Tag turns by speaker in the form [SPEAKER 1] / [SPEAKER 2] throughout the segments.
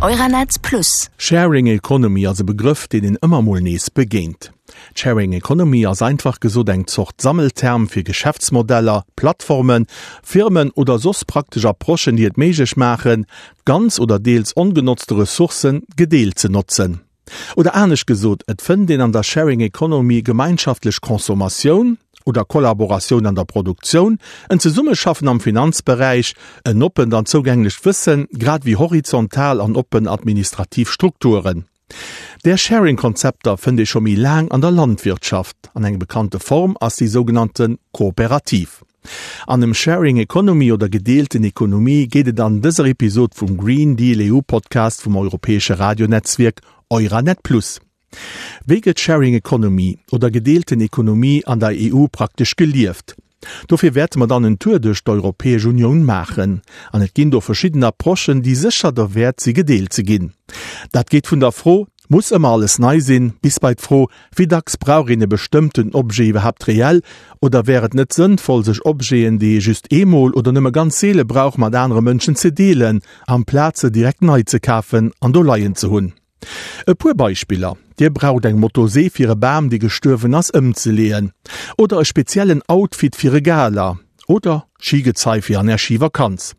[SPEAKER 1] Euranet Plus.
[SPEAKER 2] Sharing Economy ass e Begrëff, deen een ëmmer mol nees begéint. D'Sharing Economy ass einfach gesot eng Zort Sammelterm fir Geschäftsmodeller, Plattformen, Firmen oder soss praktesch Approchen, déi et méiglech maachen, ganz oder deels ongenotzte Ressourcen gedeelt ze notzen. Oder anescht gesot, et fënnt een an der Sharing Economy gemeinschaftlech Consommatioun oder Kollaboratioun an der Produktioun, en Zesummeschaffen am Finanzberäich, en oppent an zougänglecht Wëssen, grad ewéi horizontal an oppen administrativ Strukturen. Där Sharing-Konzepter fënnt ee scho méi laang an der Landwirtschaft, an eng bekannte Form ass déi sougenannte Kooperativ. An ëm Sharing Economy oder gedeelten Ekonomie geet et an dëser Episod vum Green Deal EU Podcast vum europäesche Radionetzwierk Euranet Plus. Wéi gëtt Sharing Economy oder gedeelten Ekonomie an der EU praktesch gelieft? Dofir wäerte mer dann en Tour duerch d'Europäesch Unioun maachen. An et ginn do verschidden Approchen, déi sécher derwäert si gedeelt ze ginn. Dat geet vun der Fro, Muss ëmmer alles nei sinn? bis bei d'Fro, Wéi dacks brauch een e bestëmmten Objet iwwerhaapt reell? Oder wär et net sënnvoll, sech Objeten, déi ee just eemol oder nëmme ganz seele brauch, mat anere Mënschen ze deelen, amplaz se direkt nei ze kafen an do leien ze hunn? E puer Beispiller, Dir braucht eng Motosee fir e Bam, dee gestuerwen ass, ëmzeleeën. Oder e speziellen Outfit fir e Gala. Oder Skigezei fir an Är Schivakanz.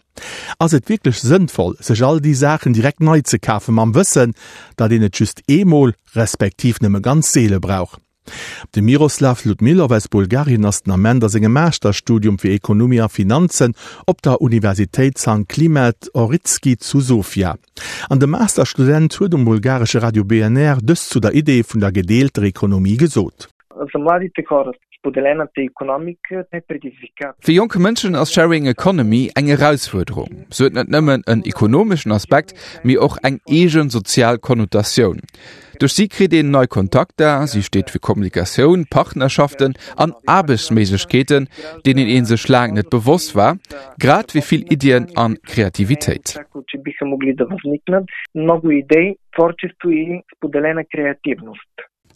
[SPEAKER 2] Ass et wierklech sënnvoll, sech all déi Saachen direkt nei ze kafen, mam Wëssen, datt een et just eemol, respektiv nëmme ganz seele brauch? De Miroslav Ludmilov aus Bulgarien ass den Ament a sengem Masterstudium fir Ekonomie a Finanzen op der Universitéit San Klimet Ohridski zu Sofia. An de Masterstudent huet um bulgaresche Radio BNR dëst zu der Idee vun der gedeelter Ekonomie gesot.
[SPEAKER 3] Fir jonk Mënschen ass Sharing Economy eng Erausfuerderung. Se huet net nëmmen en ekonomeschen Aspekt, mee och eng eegen sozial Konnotatioun. Duerch si kritt een nei Kontakter, si steet fir Kommunikatioun, Partnerschaften an Aarbechtsméiglechkeeten, deenen ee sech laang net bewosst war, grad wéi vill Iddien an Kreativitéit.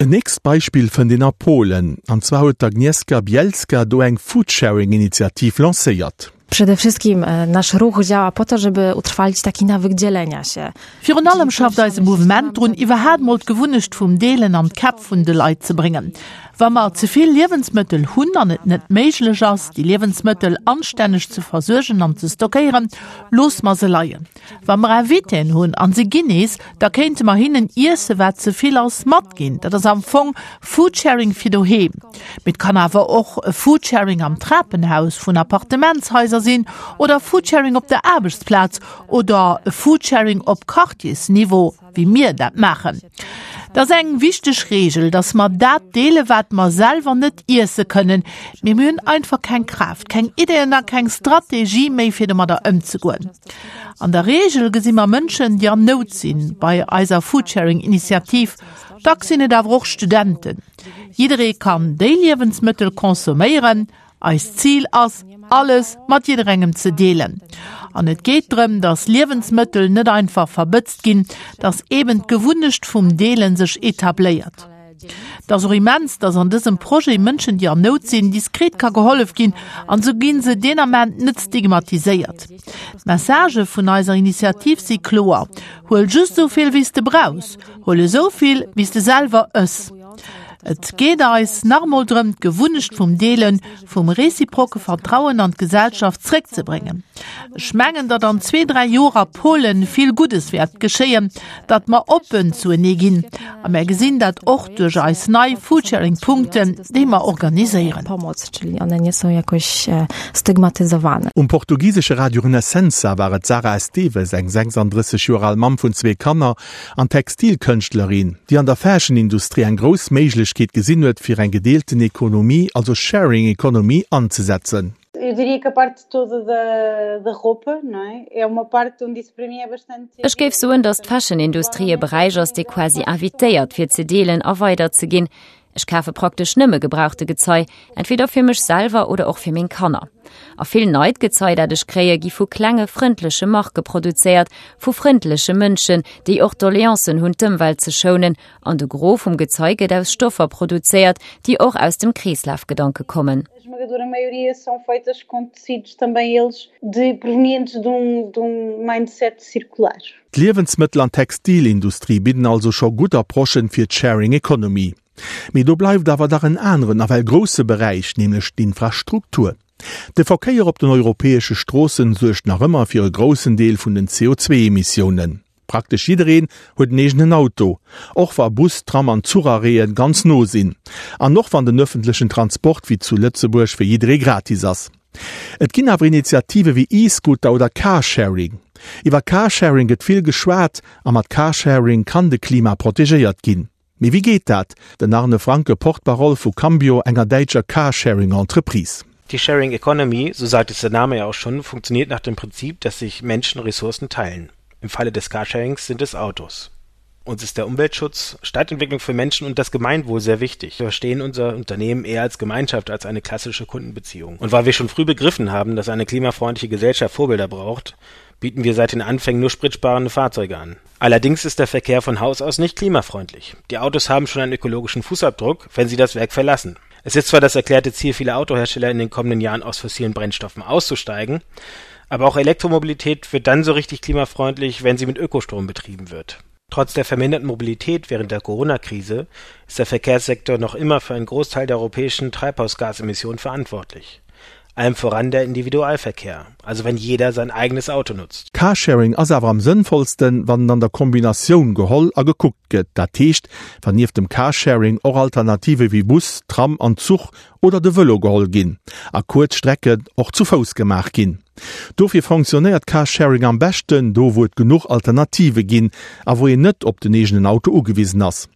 [SPEAKER 2] En nächst Beispill fënnt een a Polen, an zwar huet d'Agnieszka Bielska do eng Foodsharing-Initiativ lancéiert.
[SPEAKER 4] Przede wszystkim nasz ruch działa po to, żeby utrwalić taki nawyk dzielenia się.
[SPEAKER 5] Virun allem schafft eise Mouvement drun, iwwerhaat mol d'Gewunnecht vum Deelen an d'Käpp vun de Leit ze bréngen. Wa mer ze vill Liewensmëttel hunn an et net méiglech ass, déi Liewensmëttel anstänneg ze versuergen an ze stockéieren, loosse mer se leien. Wa mer Invitéen hunn an se ginn nees, da kéinte mer hinnen Iesse wat ze vill ass matginn. Dat ass am Fong Foodsharing fir doheem. Mee et kann awer och e Foodsharing am Trapenhaus vun Appartementshaiser sinn oder Foodsharing op der Aarbechtsplaz oder e Foodsharing op Quartiersniveau, wéi mir dat maachen. Et ass eng wichteg Reegel, dass mer dat deele wat mer selwer net iesse kënnen, mee mir hunn einfach keng Kraaft, keng Ideeën a keng Strategie méi fir domadder ëmzegoen. An der Reegel gesi mer Mënschen, déi an Nout sinn, bei eiser Foodsharing-Initiativ. Dacks sinn et awer och Studenten. Jidderee kann déi Liewensmëttel consomméieren. Eist Zil ass, alles mat jidderengem ze deelen. An et geet drëm, dass Liewensmëttel net einfach verbëtzt ginn, dass eben d'Gewunnecht vum Deelen sech etabléiert. Et ass och immens, dass an dësem Projet Mënschen, déi an Nout sinn, diskret ka gehollef ginn an esou gi se deen Ament net stigmatiséiert. D'Messagë vun eiser Initiativ si kloer, Huel just esou vill, wéi s de brauchs, huel esou vill, wéi s de selwer ëss. Et geet eis nach emol drëm, d'Gewunnecht vum Deelen, vum reziproke Vertrauen an d'Gesellschaft zréckzebréngen. Ech mengen, datt an zwee, dräi Joer a Polen vill Guddes wäert geschéien, datt mer oppen zuenee ginn. A mär gesinn dat och duerch eis nei Foodsharing-Punkten, déi mer organiséieren.
[SPEAKER 2] Um portugisesche Radio Renascença war et d'Sara Esteves, eng 36 Joer al Mamm vun zwee Kanner, An Textilkënschtlerin, déi an der Fashion-Industrie eng grouss Méiglechkeet gesinn huet, fir eng gedeelten Ekonomie, also Sharing Economy, anzesetzen.
[SPEAKER 6] Ech géif soen, datt d'Fashion-Industrie e Beräich ass, dee quasi invitéiert, fir ze deelen a weiderzeginn. Ech kafe praktesch nëmme gebrauchte Gezei, entweder fir mech selwer oder och fir meng Kanner. A vill neit Gezei, dat ech kréie, gi vu klenge frëndleche Marke produzéiert, vu frëndleche Mënschen, déi och Doleancen hunn, d'Ëmwelt ze schounen. An de Gros vum Gezei gëtt aus Stoffer produzéiert, déi och aus dem Kreeslafgedanke kommen.
[SPEAKER 1] esmagadora maioria são feitas com tecidos também eles de provenientes de um, de um mindset circular.
[SPEAKER 2] D'Liewensmëttel an Textilindustrie bidden also scho gutt Approchen fir d'Sharing Economy. Mee do bleift awer dach en aneren, nawell grousse Beräich, nämlech d'Infrastruktur. De Verkéier op den europäesche Stroossen suergt nach ëmmer fir e groussen Deel vun den CO2-Emissiounen. Praktesch jiddereen huet en eegenen Auto, och wa Bus, Tram an Zucharrêten ganz no sinn. An och wann den ëffentlechen Transport wéi zu Lëtzebuerg fir jidderee gratis ass. Et ginn awer Initiative wéi E-Scooter oder Carsharing. Iwwer Carsharing gëtt vill geschwat a mat Carsharing kann de Klima protegéiert ginn. Mee wéi geet dat? Den Arne Franke, Porte-parole vu Cambio, enger däitscher Carsharing-Entreprise.
[SPEAKER 7] Die Sharing Economy, so sagt es der Name ja auch schon, funktioniert nach dem Prinzip, dass sich Menschen Ressourcen teilen. Im Falle des Carsharings sind es Autos. Uns ist der Umweltschutz, Stadtentwicklung für Menschen und das Gemeinwohl sehr wichtig. Wir verstehen unser Unternehmen eher als Gemeinschaft als eine klassische Kundenbeziehung. Und weil wir schon früh begriffen haben, dass eine klimafreundliche Gesellschaft Vorbilder braucht, bieten wir seit den Anfängen nur spritsparende Fahrzeuge an. Allerdings ist der Verkehr von Haus aus nicht klimafreundlich. Die Autos haben schon einen ökologischen Fußabdruck, wenn sie das Werk verlassen. Es ist zwar das erklärte Ziel vieler Autohersteller in den kommenden Jahren aus fossilen Brennstoffen auszusteigen, aber auch Elektromobilität wird dann so richtig klimafreundlich, wenn sie mit Ökostrom betrieben wird. Trotz der verminderten Mobilität während der Corona-Krise ist der Verkehrssektor noch immer für einen Großteil der europäischen Treibhausgasemissionen verantwortlich. Allem voran der Individualverkehr, also wenn jeder sein eigenes Auto nutzt.
[SPEAKER 2] Carsharing ass awer am sënnvollsten, wann en an der Kombinatioun geholl a gekuckt gëtt. Dat heescht, wann nieft dem Carsharing och Alternative wéi Bus, Tram an Zuch oder de Vëlo geholl ginn a kuerz Strecken och zu Fouss gemaach ginn. Dofir fonctionnéiert Carsharing am beschten do, wou et genuch Alternative ginn a wou een net op den eegenen Auto ugewisen ass.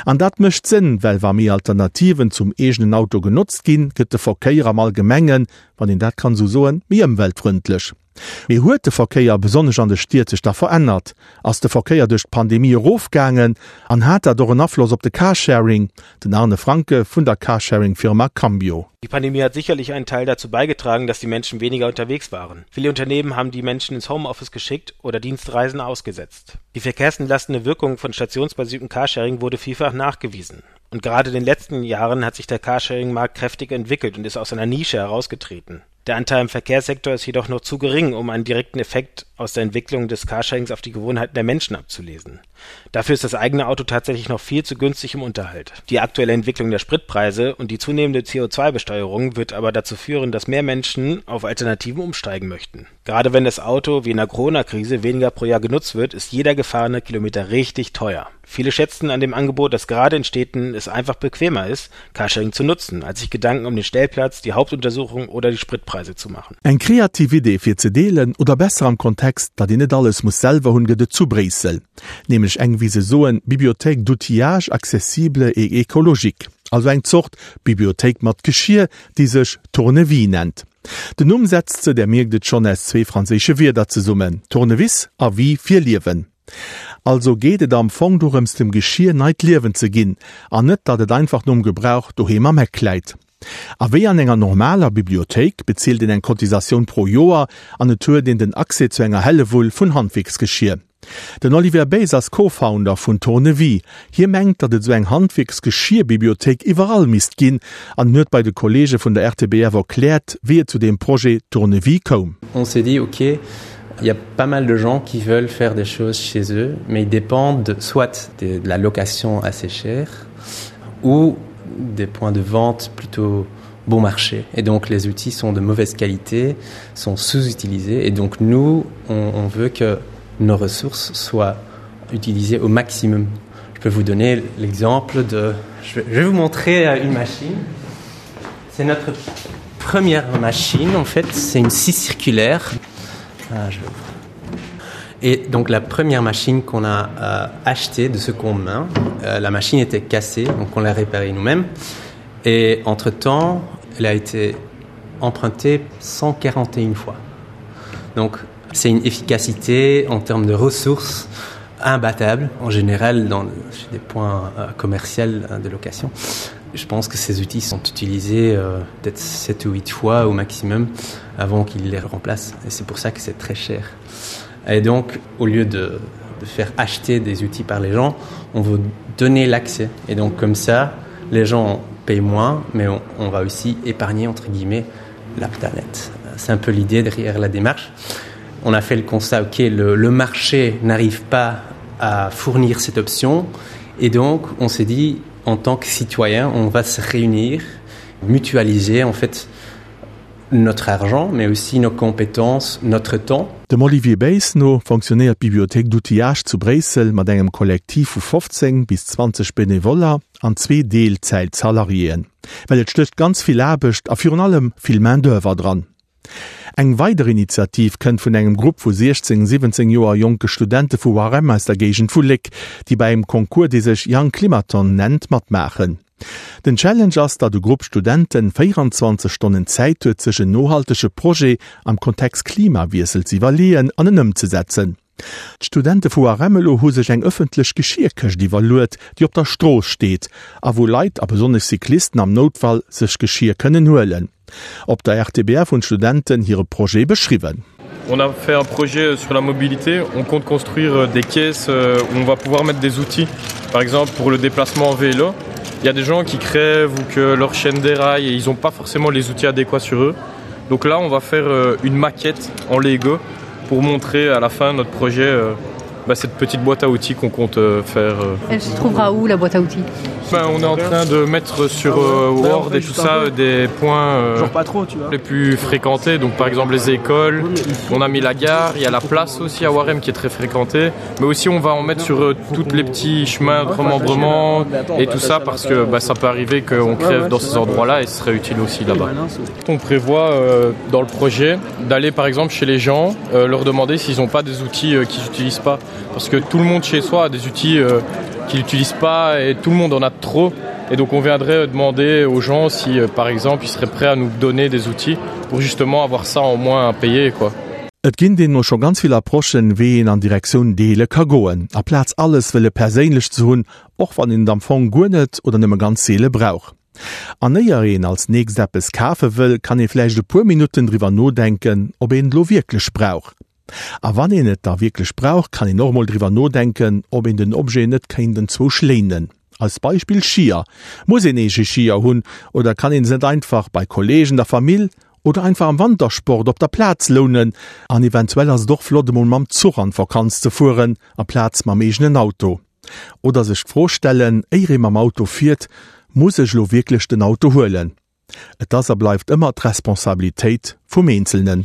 [SPEAKER 2] An dat mécht Sënn, well wa méi Alternativen zum eegenen Auto genotzt ginn, gëtt de Verkéier am Allgemengen, wann een dat kann esou soen, méi ëmweltfrëndlech. Mee huet de Verkéier, besonnesch an de Stied, sech da verännert? Ass de Verkéier duerch d'Pandemie erofgaangen an hat dat och en Afloss op de Carsharing? Den Arne Franke vun der Carsharing-Firma Cambio.
[SPEAKER 7] Die Pandemie hat sicherlich einen Teil dazu beigetragen, dass die Menschen weniger unterwegs waren. Viele Unternehmen haben die Menschen ins Homeoffice geschickt oder Dienstreisen ausgesetzt. Die verkehrsentlastende Wirkung von stationsbasiertem Carsharing wurde vielfach nachgewiesen. Und gerade in den letzten Jahren hat sich der Carsharing-Markt kräftig entwickelt und ist aus einer Nische herausgetreten. Der Anteil im Verkehrssektor ist jedoch noch zu gering, um einen direkten Effekt aus der Entwicklung des Carsharings auf die Gewohnheiten der Menschen abzulesen. Dafür ist das eigene Auto tatsächlich noch viel zu günstig im Unterhalt. Die aktuelle Entwicklung der Spritpreise und die zunehmende CO2-Besteuerung wird aber dazu führen, dass mehr Menschen auf Alternativen umsteigen möchten. Gerade wenn das Auto, wie in der Corona-Krise, weniger pro Jahr genutzt wird, ist jeder gefahrene Kilometer richtig teuer. Viele schätzen an dem Angebot, dass gerade in Städten es einfach bequemer ist, Carsharing zu nutzen, als sich Gedanken um den Stellplatz, die Hauptuntersuchung oder die Spritpreise zu machen.
[SPEAKER 2] Eng kreativ Idee fir ze deelen, oder besser am Kontext, datt een net alles muss selwer hunn, gëtt et zu Bréissel. Nämlech eng, wéi se soen, Bibliothèque d'outillage accessible et écologique. Also eng Zort Bibliothéik mat Geschier, déi sech Tournevis nennt. Den Numm setzt se, där mierkt et schonn, aus zwee franséische Wierder zesummen, Tournevis a Vie fir Liewen. Also geet et am Fong dorëms dem Geschier neit Liewen ze ginn an net datt et einfach nom Gebrauch doheem am Eck läit. A wéi an enger normaler Bibliothéik bezilt een eng Cotisatioun pro Joer an et huet een den Accès zu enger Hellewull vun Handwierksgeschier. Den Olivier Beys ass Co-Founder vun Tournevis. Hie mengt, datt et esou eng Handwierksgeschierbibliothéik iwwerall misst ginn an en huet bei de Kolleege vun der RTBF erkläert, wéi et zu deem Projet Tournevis koum.
[SPEAKER 8] On s'est dit, ok, il y a pas mal de gens qui veulent faire des choses chez eux, mais ils dépendent soit de la location assez chère ou des points de vente plutôt bon marché. Et donc les outils sont de mauvaise qualité, sont sous-utilisés et donc nous, on, on veut que nos ressources soient utilisées au maximum. Je peux vous donner l'exemple de je vais, je vais vous montrer euh, une machine. C'est notre première machine en fait, c'est une scie circulaire. Ah, je vais... Et donc la première machine qu'on a euh, achetée de seconde main, euh, la machine était cassée, donc on l'a réparée nous-mêmes. Et entre-temps, elle a été empruntée 141 fois. Donc c'est une efficacité en termes de ressources imbattable en général dans chez des points euh, commerciaux euh, de location. Je pense que ces outils sont utilisés euh, peut-être 7 ou 8 fois au maximum avant qu'ils les remplacent et c'est pour ça que c'est très cher. Et donc au lieu de, de faire acheter des outils par les gens, on veut donner l'accès et donc comme ça les gens ont. paye moins, mais on, on va aussi épargner entre guillemets la planète. C'est un peu l'idée derrière la démarche. On a fait le constat ok le, le marché n'arrive pas à fournir cette option et donc on s'est dit en tant que citoyen on va se réunir, mutualiser en fait notre argent mais aussi nos compétences, notre temps.
[SPEAKER 2] Dem Olivier Beys no fonctionnéiert d'Bibliothèque d'outillage zu Bréissel mat engem Kollektiv vu 15 bis 20 Benevoller an zwee Deelzäit-Salariéen. Well et stécht ganz vill Aarbecht a virun allem vill Main d'oeuvre dran. Eng weider Initiativ kënnt vun engem Grupp vu 16, 17 Joer jonke Studente vu Waremme aus der Géigend vu Léck, déi bei engem Concours, dee sech Young Climathon nennt, matmaachen. Den Challenge ass, datt e Grupp Studenten 24 Stonnen Zäit huet, sech en nohaltege Projet am Kontext Klimawiessel ze iwwerleeën an en ëmzesetzen. D'Studente vu Waremme elo hu sech eng ëffentlech Geschierkëscht iwwerluet, déi op der Strooss steet a wou Leit, a besonnesch Cyclisten am Noutfall, sech Geschir kënnen huelen. Op der RTBF hunn d'Studenten hire Projet beschriwwen.
[SPEAKER 9] On a fait un projet sur la mobilité, on compte construire des caisses où on va pouvoir mettre des outils, par exemple pour le déplacement en vélo. Il y a des gens qui crèvent ou que leur chaîne déraille et ils n'ont pas forcément les outils adéquats sur eux. Donc là, on va faire une maquette en Lego pour montrer à la fin notre projet euh, bah, cette petite boîte à outils qu'on compte euh, faire. Euh.
[SPEAKER 10] Elle se trouvera où la boîte à outils
[SPEAKER 9] ben, On est en train de mettre sur euh, Word et tout ça des points euh,
[SPEAKER 11] Genre pas trop, tu vois.
[SPEAKER 9] les plus fréquentés donc par exemple les écoles on a mis la gare il y a la place aussi à Warem qui est très fréquentée mais aussi on va en mettre sur euh, toutes les petits chemins de remembrement et tout ça parce que bah, ça peut arriver qu'on crève dans ces endroits là et ce serait utile aussi là-bas on prévoit euh, dans le projet d'aller par exemple chez les gens euh, leur demander s'ils n'ont pas des outils euh, qu'ils n'utilisent pas parce que tout le monde chez soi a des outils euh, qu'ils n'utilisent pas et tout le monde en a trop et donc on viendrait demander aux gens si euh, par exemple ils seraient prêts à nous donner des outils pour justement avoir ça en moins à payer quoi.
[SPEAKER 2] Et ginn deemno scho ganz vill Approchen, wéi een an Direktioun Deele ka goen, aplaz alles wëlle perséinlech ze hunn, och wann een et am Fong guer net oder nëmme ganz seele brauch. An éier een als nächst eppes kafe wëll, kann ee vläicht e puer Minutten driwwer nodenken, ob een et lo wierklech brauch. A wann een et da wierklech brauch, kann een och mol driwwer nodenken, ob een den Objet net kéint enzwousch léinen. Als Beispill Skier. Muss een eege Skier hunn oder kann een se net einfach bei Kollegen, der Famill oder einfach am Wantersport op der Plaz lounen? An eventuell ass et och flott emol mam Zuch an d'Vakanz ze fueren, amplaz mam eegenen Auto. Oder sech d'Fro stellen, éier ee mam Auto fiert, Muss ech elo wierklech den Auto huelen? Et ass a bleift ëmmer d'Responsabilitéit vum Eenzelnen.